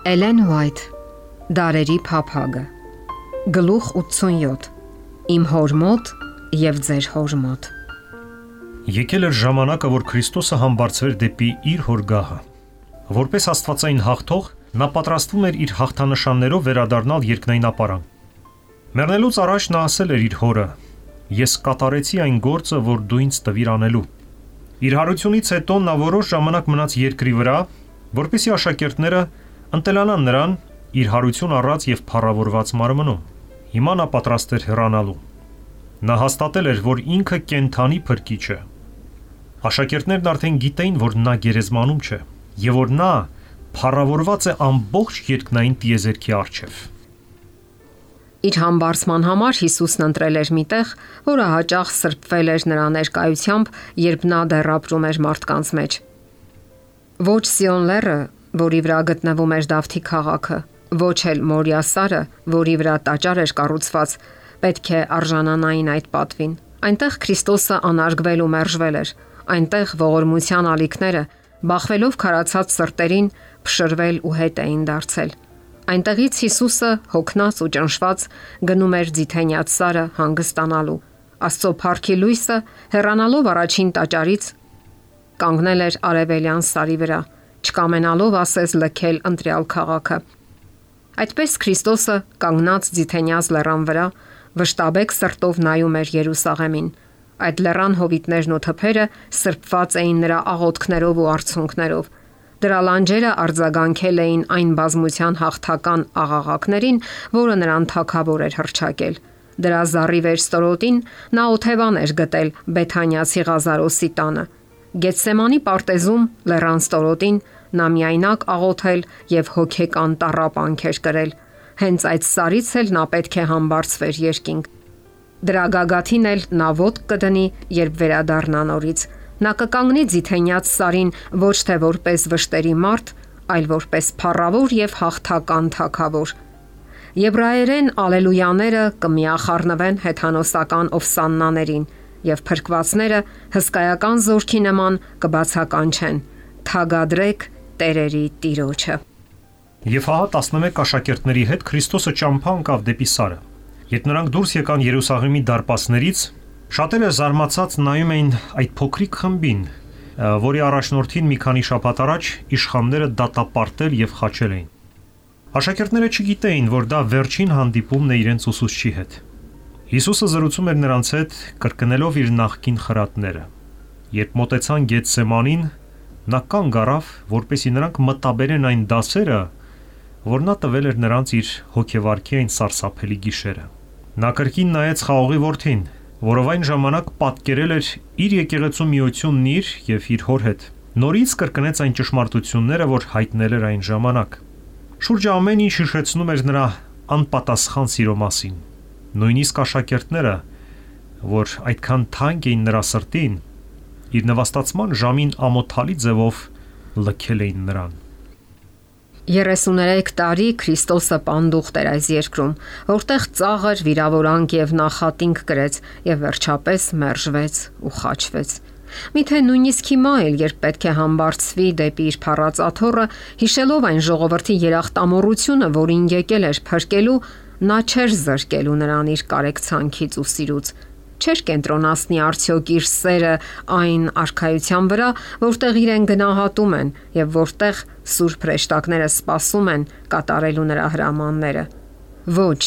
Էլեն Ուայթ, Դարերի փափագը, գլուխ 87, իմ հոր մոտ և ձեր հոր մոտ։ Եկել էր ժամանակը, որ Քրիստոսը համբարձվեր դեպի իր հոր գահը։ Որպես աստվածային հաղթող, նա պատրաստվում էր իր հաղթանշաններով վերադառնալ երկնային ապարան։ Մեռնելուց առաջ նա ասել էր իր հորը. «Ես կատարեցի այն գործը, որ դու ինձ տվիր անելու»։ Իր հարությունից հետո նա որոշ ժամանակ մնաց երկրի վրա, որպեսզի աշակերտները ընտելանան նրան իր հարություն առած և փառավորված մարմնում։ Հիմա նա պատրաստ էր հեռանալու։ Նա հաստատել էր, որ ինքը կենդանի փրկիչ է։ Աշակերտներն արդեն գիտեին, որ նա գերեզմանում չէ, և որ նա փառավորված է ամբողջ երկնային տիեզերքի առջև։ Իր համբարձման համար Հիսուսն ընտրել էր մի տեղ, որը հաճախ սրբվել էր նրա ներկայությամբ, երբ նա դեռ ապրում էր մարդկանց մեջ։ Ոչ Սիոն լեռը, որի վրա գտնվում էր Դավթի քաղաքը, ոչ էլ Մորիա սարը, որի վրա տաճար էր կառուցված, պետք է արժանանային այդ պատվին։ Այնտեղ Քրիստոսը անարգվել ու մերժվել էր։ Այնտեղ ողորմության ալիքները, բախվելով քարացած սրտերին, փշրվել ու հետ էին դարձել։ Այնտեղից Հիսուսը, հոգնած ու ճնշված, գնում էր Ձիթենյաց սարը հանգստանալու։ Աստծո փառքի լույսը, հեռանալով առաջին տաճարից, կանգնել էր արևելյան սարի վրա, չկամենալով ասես լքել ընտրյալ քաղաքը։ Այդպես Քրիստոսը, կանգնած Ձիթենյաց լեռան վրա, վշտաբեկ սրտով նայում էր Երուսաղեմին։ Այդ լեռան հովիտներն ու թփերը սրբված էին նրա աղոթքներով ու արցունքներով։ Դրա լանջերը արձագանքել էին այն բազմության հաղթական աղաղակներին, որը նրան թագավոր էր հռչակել։ Դրա զառիվ ստորոտին նա օթևան էր գտել Բեթանիացի Ղազարոսի տանը։ Գեթսեմանի պարտեզում լեռան ստորոտին նա միայնակ աղոթել եւ հոգեկան տառապանք էր կրել։ Հենց այդ սարից էլ նա պետք է համբարձվեր երկինք։ Դրա գագաթին էլ նա ոտք կդնի, երբ վերադառնա նորից։ Նա կկանգնի Ձիթենյաց սարին ոչ թե որպես վշտերի մարդ, այլ որպես փառավոր եւ հաղթական թագավոր։ Եբրայերեն ալելույաները կմիախառնվեն հեթանոսական ովսաննաներին, եւ փրկվածները հսկայական զորքի նման կբացականչեն. «Թագադրեք տերերի Տիրոջը»։ Եվ հա 11 աշակերտների հետ Քրիստոսը ճամփա ընկավ դեպի սարը։ Երբ նրանք դուրս եկան Երուսաղեմի դարպասներից, շատերը զարմացած նայում էին այդ փոքրիկ խմբին, որի առաջնորդին մի քանի շաբաթ առաջ իշխանները դատապարտել եւ խաչել էին։ Աշակերտները չգիտեին, որ դա վերջին հանդիպումն է իրենց ուսուցչի հետ։ Հիսուսը զրուցում էր նրանց հետ, կրկնելով իր նախկին խրատները։ Երբ մոտեցան Գեթսեմանին, նա կանգ առավ, որպեսզի նրանք մտաբերեն այն դասերը, որ նա տվել էր նրանց իր հոգեվարքի այն սարսափելի գիշերը։ Նա կրկին նայեց խաղողի որդին, որով այն ժամանակ պատկերել էր իր եկեղեցու միությունն իր եւ իր հոր հետ։ Նորից կրկնեց այն ճշմարտությունները, որ հայտնել էր այն ժամանակ։ Շուրջը ամեն ինչ հիշեցնում էր նրա անպատասխան սիրո մասին։ Նույնիսկ աշակերտները, որ այդքան թանկ էին նրա սրտին, իր նվաստացման ժամին ամոթալի ձևով լքել էին նրան։ 33 տարի Քրիստոսը պանդուխտ էր այս երկրում, որտեղ ծաղր, վիրավորանք եւ նախատինք կրեց եւ վերջապես մերժվեց ու խաչվեց։ Միթե նույնիսկ հիմա էլ, երբ պետք է համբարձվի դեպի իր փառած աթոռը, հիշելով այն ժողովրդի երախտամոռությունը, որին եկել էր փրկելու, նա չէր զրկելու նրան իր կարեկցանքից ու սիրուց։ Չէր կենտրոնացնի արդյոք իր սերը այն արքայության վրա, որտեղ իրեն գնահատում են եւ որտեղ սուրբ հրեշտակները սպասում են կատարելու նրա հրամանները։ Ոչ,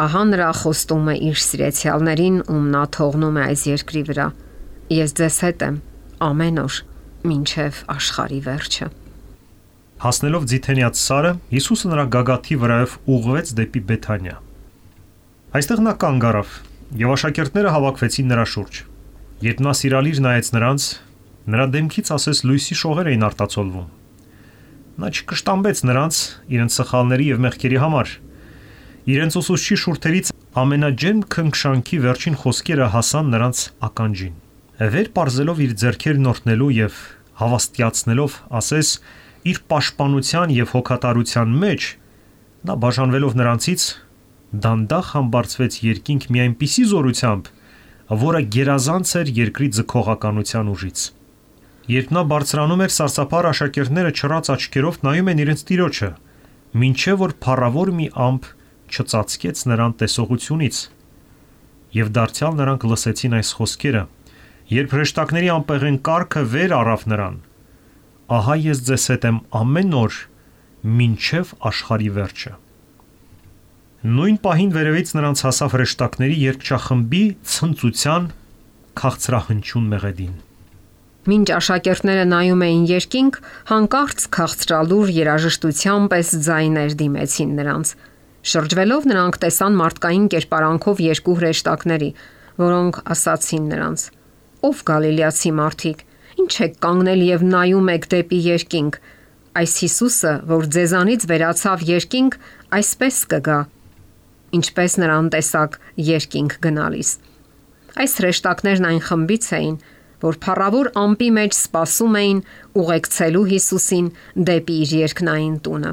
ահա նրա խոստումը իր սիրեցյալներին, ում նա թողնում է այս երկրի վրա։ Ես ձեզ հետ եմ ամեն օր, մինչև աշխարհի վերջը։ Հասնելով Ձիթենյաց սարը, Հիսուսը նրա գագաթի վրայով ուղղվեց դեպի Բեթանիա։ Այստեղ նա կանգ առավ, եւ աշակերտները հավաքվեցին նրա շուրջ։ Երբ նա սիրալիր նայեց նրանց, նրա դեմքից ասես լույսի շողեր էին արտացոլվում։ Նա չկշտամբեց նրանց իրենց սխալների եւ մեղքերի համար։ Իրենց ուսուցչի շուրթերից ամենաջերմ քնքշանքի վերջին խոսքերը հասան նրանց ականջին։ Վեր պարզելով իր ձեռքերն օրհնելու եւ հավաստիացնելով, ասես իր պաշտպանության եւ հոգատարության մեջ, նա բաժանվելով նրանցից դանդաղ համբարձվեց երկինք մի այնպիսի զորությամբ, որը գերազանց էր երկրի ձգողականության ուժից։ Երբ նա բարձրանում էր, սարսափառ աշակերտները չռած աչքերով նայում են իրենց Տիրոջը, մինչև որ փառավոր մի ամպ չծածկեց նրան տեսողությունից։ Եվ դարձյալ նրանք լսեցին այս խոսքերը, երբ հրեշտակների անպեղեն կառքը վեր առավ նրան. ահա ես ձեզ հետ եմ ամեն օր, մինչև աշխարհի վերջը։ Նույն պահին վերևից նրանց հասավ հրեշտակների երկչախմբի ցնծության քաղցրահնչյուն մեղեդին։ Մինչ աշակերտները նայում էին երկինք, հանկարծ քաղցրալուր երաժշտության պես ձայներ դիմեցին նրանց։ Շրջվելով նրանք տեսան մարդկային կերպարանքով երկու հրեշտակների, որոնք ասացին նրանց. «Ով գալիլեացի մարդիկ, ինչ եք կանգնել եւ նայում եք դեպի երկինք, այս Հիսուսը, որ ձեզանից վերացավ երկինք, այսպես կգա, ինչպես նրան տեսակ երկինք գնալիս»։ Այս հրեշտակներն այն խմբից էին, որ փառավոր ամպի մեջ սպասում էին ուղեկցելու Հիսուսին դեպի իր երկնային տունը։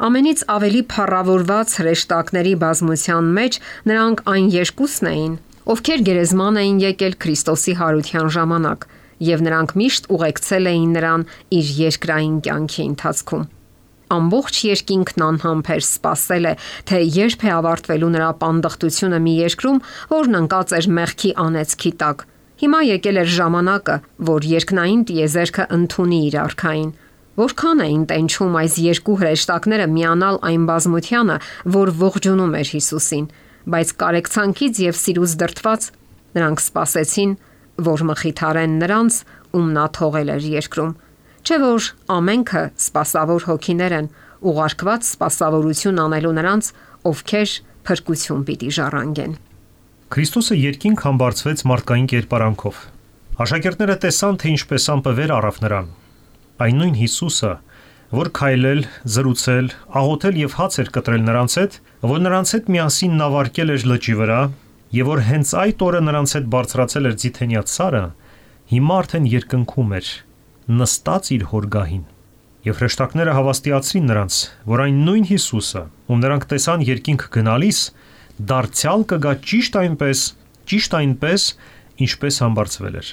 Ամենից ավելի փառավորված հրեշտակների բազմության մեջ նրանք այն երկուսն էին, ովքեր գերեզման էին եկել Քրիստոսի հարության ժամանակ, եւ նրանք միշտ ուղեկցել էին նրան իր երկրային կյանքի ընթացքում։ Ամբողջ երկինքն անհամբեր սպասել է, թե երբ է ավարտվելու նրա պանդխտությունը մի երկրում, որն ընկած էր մեղքի անեծքի տակ։ Հիմա եկել էր ժամանակը, որ երկնային տիեզերքը ընդունի իր արքային։ Որքան էին տենչում այս երկու հրեշտակները միանալ այն բազմությանը, որ ողջունում էր Հիսուսին, բայց կարեկցանքից եւ սիրուց դրդված նրանք սպասեցին, որ մխիթարեն նրանց, ում նա թողել էր երկրում։ Չէ՞ որ ամենքը սպասավոր հոգիներ են, ուղարկված սպասավորություն անելու նրանց, ովքեր փրկություն պիտի ժառանգեն։ Քրիստոսը երկինք համբարձվեց մարդկային կերպարանքով։ Աշակերտները տեսան, թե ինչպես ամպը վեր առավ նրան։ Այն նույն Հիսուսը, որ քայլել, զրուցել, աղոթել եւ հաց էր կտրել նրանց հետ, որ նրանց հետ միասին նավարկել էր լճի վրա, եւ որ հենց այդ օրը նրանց հետ բարձրացել էր Ձիթենյաց սարը, հիմա արդեն երկնքում էր, նստած իր հորգահին։ Եվ հրեշտակները հավաստիացրին նրանց, որ այն նույն Հիսուսը, ում նրանք տեսան երկինք գնալիս, դարձյալ կգա ճիշտ այնպես, ինչպես համբարձվել էր։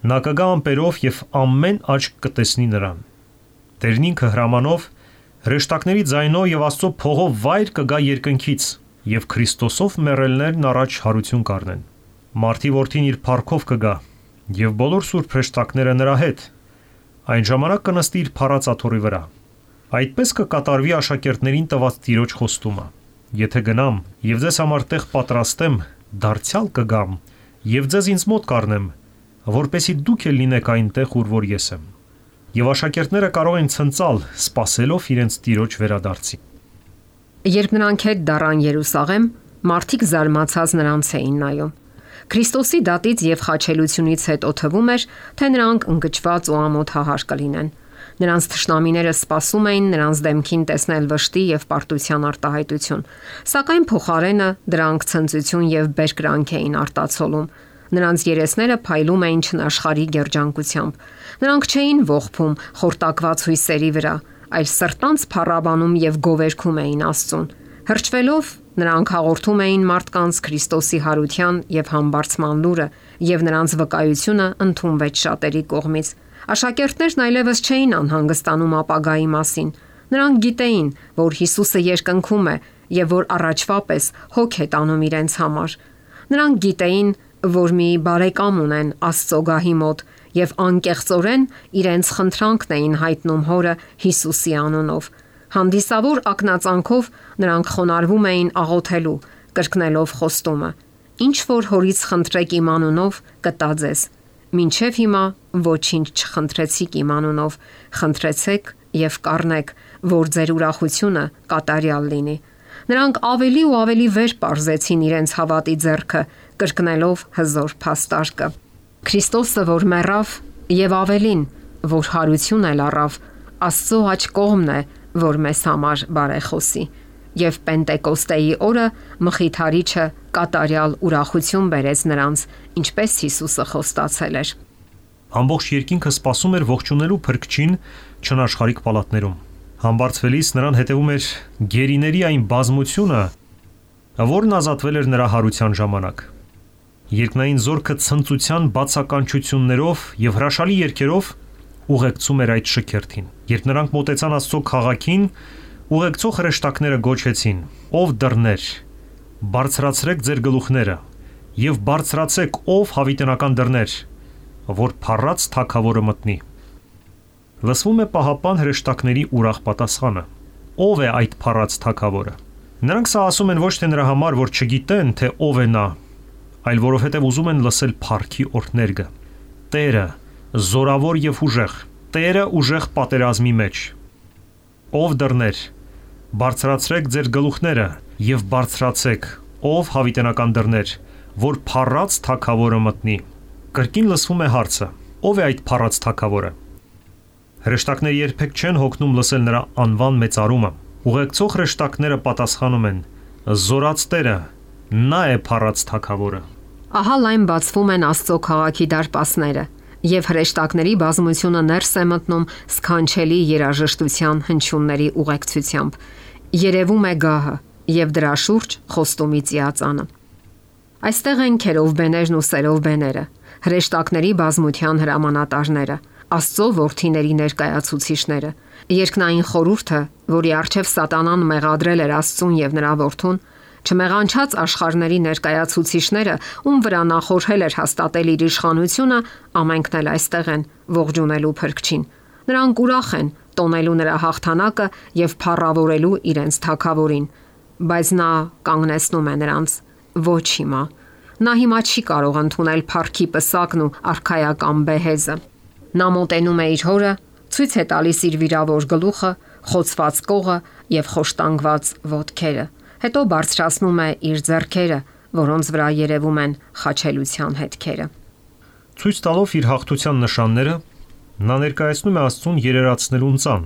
Նա կգա ամպերով եւ ամեն աչք կտեսնի նրան։ Տերն ինքը հրամանով, հրեշտակների ձայնով եւ Աստծո փողով վայր կգա երկնքից, եւ Քրիստոսով մեռելներն առաջ հարություն կառնեն։ Մարդի որդին իր փառքով կգա, եւ բոլոր սուրբ հրեշտակները նրա հետ։ Այն ժամանակ կնստի իր փառած աթոռի վրա։ Այդպես կկատարվի աշակերտներին տված Տիրոջ խոստումը. Եթե գնամ եւ ձեզ համար տեղ պատրաստեմ, դարձյալ կգամ եւ ձեզ ինձ մոտ կառնեմ, որպեսզի դուք էլ լինեք այնտեղ, ուր որ ես եմ։ Եվ աշակերտները կարող են ցնծալ, սпасելով իրենց Տիրոջ վերադարձին։ Երբ նրանք հետ դառան Երուսաղեմ, մարդիկ զարմացած նրանց էին նայում։ Քրիստոսի դատից եւ խաչելությունից հետո թվում էր, թե նրանք ընկճված ու ամոթահար կլինեն։ Նրանց թշնամիները սպասում էին նրանց դեմքին տեսնել վշտի եւ պարտության արտահայտություն, սակայն փոխարենը դրանք ցնծություն եւ բերկրանք էին արտացոլում։ Նրանց երեսները փայլում էին չնաշխարհի երջանկությամբ։ Նրանք չէին ողբում խորտակված հույսերի վրա, այլ սրտանց փառաբանում եւ գովերգում էին Աստծուն։ Հրճվելով նրանք հաղորդում էին մարդկանց Քրիստոսի հարության եւ համբարձման լուրը, եւ նրանց վկայությունը ընդունվեց շատերի կողմից։ Աշակերտներն այլևս չէին անհանգստանում ապագայի մասին։ Նրանք գիտեին, որ Հիսուսը երկնքում է եւ որ առաջվա պես հոգ է տանում իրենց համար։ Նրանք գիտեին, որ մի բարեկամ ունեն Աստծո գահի մոտ եւ անկեղծորեն իրենց խնդրանքն էին հայտնում Հորը Հիսուսի անունով։ Հանդիսավոր ակնածանքով նրանք խոնարհվում էին աղոթելու, կրկնելով խոստումը. «Ինչ որ Հորից խնդրեք իմ անունով, կտա ձեզ։ Մինչև հիմա ոչինչ չխնդրեցիք իմ անունով, խնդրեցեք եւ կառնեք, որ ձեր ուրախությունը կատարյալ լինի»։ Նրանք ավելի ու ավելի վեր պարզեցին իրենց հավատի ձեռքը, կրկնելով հզոր փաստարկը. Քրիստոսը, որ մեռավ, եւ ավելին, որ հարություն էլ առավ, Աստծո աջ կողմն է, որ մեզ համար բարեխոսի։ Եվ Պենտեկոստեի օրը Մխիթարիչը կատարյալ ուրախություն բերեց նրանց, ինչպես Հիսուսը խոստացել էր։ Ամբողջ երկինքը սպասում էր ողջունելու Փրկչին չնաշխարհիկ պալատներում։ Համբարձվելիս նրան հետևում էր գերիների այն բազմությունը, որն ազատվել էր նրա հարության ժամանակ։ Երկնային զորքը ցնծության բացականչություններով եւ հրաշալի երգերով ուղեկցում էր այդ շքերթին։ Երբ նրանք մոտեցան Աստծո քաղաքին, Ուղեկցող հրեշտակները գոչեցին. «Ով դռներ, բարձրացրեք ձեր գլուխները եւ բարձրացեք ով հավիտենական դռներ, որ փառած թագավորը մտնի»։ Լսվում է պահապան հրեշտակների ուրախ պատասխանը. «Ով է այդ փառած թագավորը»։ Նրանք սա ասում են ոչ թե նրա համար, որ չգիտեն, թե ով է նա, այլ որովհետև ուզում են լսել փառքի օրհներգը։ Տերը զորավոր եւ ուժեղ, Տերը ուժեղ պատերազմի մեջ։ Ով դռներ, բարձրացրեք ձեր գլուխները եւ բարձրացեք ով հավիտենական դռներ, որ փառած թագավորը մտնի։ Կրկին լսվում է հարցը. ով է այդ փառած թագավորը։ Հրեշտակները երբեք չեն հոգնում լսել նրա անվան մեծարումը։ Ուղեկցող հրեշտակները պատասխանում են. «Զորած Տերը, նա է փառած թագավորը»։ Ահա լայն բացվում են Աստծո քաղաքի դարպասները, եւ հրեշտակների բազմությունը ներս է մտնում սքանչելի երաժշտության հնչյունների ուղեկցությամբ։ Երևում է գահը եւ դրա շուրջ խոստումի ծիածանը։ Այստեղ են քերովբեներն ու սերովբեները, հրեշտակների բազմության հրամանատարները, Աստծո որդիների ներկայացուցիչները, երկնային խորհուրդը, որի առջև Սատանան մեղադրել էր Աստծուն եւ նրա որդուն, չմեղանչած աշխարհների ներկայացուցիչները, ում վրա նա խորհել էր հաստատել իր իշխանությունը, ամենքն էլ այստեղ են ողջունելու Փրկչին։ Նրանք ուրախ են տոնելու նրա հաղթանակը եւ փառավորելու իրենց թագավորին, բայց նա կանգնեցնում է նրանց. ոչ հիմա։ Նա հիմա չի կարող ընդունել փառքի պսակն ու արքայական բեհեզը։ Նա մոտենում է իր հորը, ցույց է տալիս իր վիրավոր գլուխը, խոցված կողը եւ խոշտանգված ոտքերը։ Հետո բարձրացնում է իր ձեռքերը, որոնց վրա երևում են խաչելության հետքերը։ Ցույց տալով իր հաղթության նշանները, նա ներկայացնում է Աստծուն երերացնելուն ծան,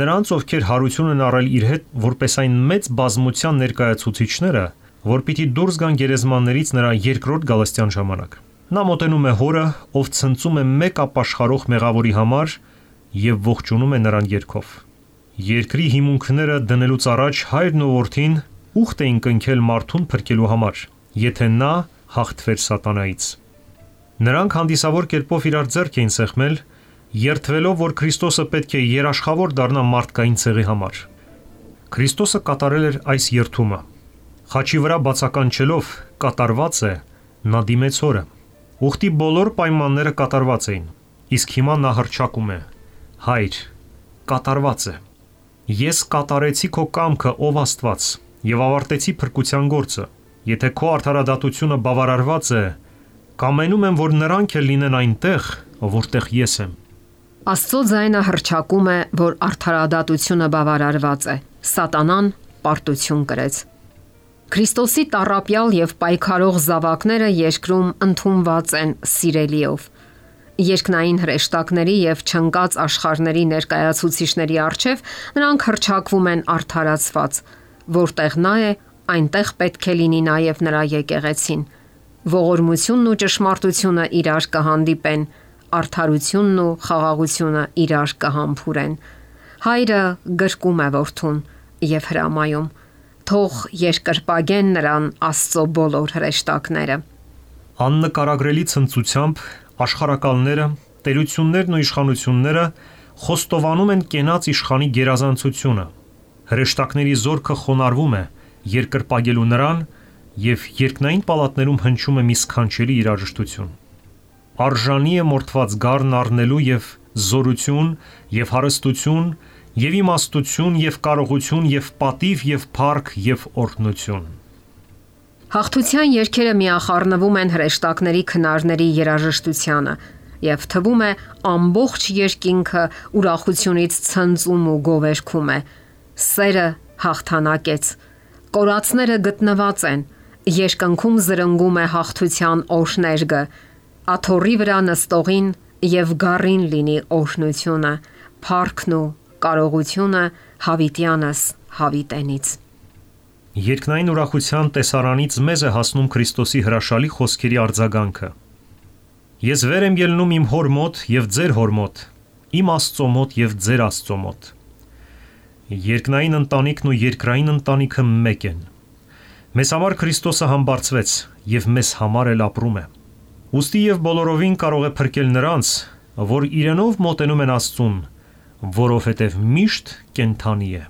նրանց, ովքեր հարություն են առել իր հետ, որպես այն մեծ բազմության ներկայացուցիչները, որ պիտի դուրս գան գերեզմաններից նրա երկրորդ գալստյան ժամանակ։ Նա մոտենում է հորը, ով ցնծում է մեկ ապաշխարող մեղավորի համար եւ ողջունում է նրան երգով։ Երկրի հիմունքները դնելուց առաջ հայրն ու որդին ուխտ էին կնքել մարդուն փրկելու համար, եթե նա հաղթվեր սատանայից։ Նրանք հանդիսավոր կերպով իրար ձեռք էին սեղմել, երդվելով, որ Քրիստոսը պետք է երաշխավոր դառնա մարդկային ցեղի համար։ Քրիստոսը կատարել էր այս երդումը։ Խաչի վրա բացականչելով կատարված է, նա դիմեց հորը։ Ուխտի բոլոր պայմանները կատարված էին, իսկ հիմա նա հռչակում է. Հայր, կատարված է։ Ես կատարեցի քո կամքը, ով Աստված, եւ ավարտեցի փրկության գործը։ Եթե քո արդարադատությունը բավարարված է, կամենում եմ, որ նրանք էլ լինեն այնտեղ, որտեղ ես եմ։ Աստծո ձայնը հռչակում է, որ արդարադատությունը բավարարված է։ Սատանան պարտություն կրեց։ Քրիստոսի տառապյալ եւ պայքարող զավակները երկրում ընդունված են սիրելիով։ Երկնային հրեշտակների եւ չնկած աշխարհների ներկայացուցիչների առջև նրանք հռչակվում են արդարացված, որտեղ նա է, այնտեղ պետք է լինի նաեւ նրա եկեղեցին։ Ողորմությունն ու ճշմարտությունը իրար կհանդիպեն, արդարությունն ու խաղաղությունը իրար կհամբուրեն։ Հայրը գրկում է որդուն եւ հրամայում. թող երկրպագեն նրան Աստծո բոլոր հրեշտակները։ Աննկարագրելի ցնծությամբ աշխարհակալները, տերություններն ու իշխանությունները խոստովանում են կենաց իշխանի գերազանցությունը։ Հրեշտակների զորքը խոնարհվում է երկրպագելու նրան եւ երկնային պալատներում հնչում է մի սքանչելի երաժշտություն։ Արժանի է մորթված գառն առնելու եւ զորություն եւ հարստություն եւ իմաստություն եւ կարողություն եւ պատիվ եւ փառք եւ օրհնություն։ Հաղթության երգերը միախառնվում են հրեշտակների քնարների երաժշտությանը եւ թվում է ամբողջ երկինքը ուրախությունից ցնծում ու գովերգում է։ Սերը հաղթանակեց, կորածները գտնված են, երկնքում զրնգում է հաղթության օրհներգը, աթոռի վրա նստողին եւ գառին լինի օրհնությունը, փառքն ու կարողությունը հավիտյանս հավիտենից։ Երկնային ուրախության տեսարանից մեզ է հասնում Քրիստոսի հրաշալի խոսքերի արձագանքը։ Ես վեր եմ ելնում իմ հոր մոտ եւ ձեր հոր մոտ, իմ Աստծո մոտ եւ ձեր Աստծո մոտ։ Երկնային ընտանիքն ու երկրային ընտանիքը մեկ են։ Մեզ համար Քրիստոսը համբարձվեց եւ մեզ համար էլ ապրում է։ Ուստի եւ բոլորովին կարող է փրկել նրանց, որ իրենով մոտենում են Աստծուն, որովհետև միշտ կենթանի է։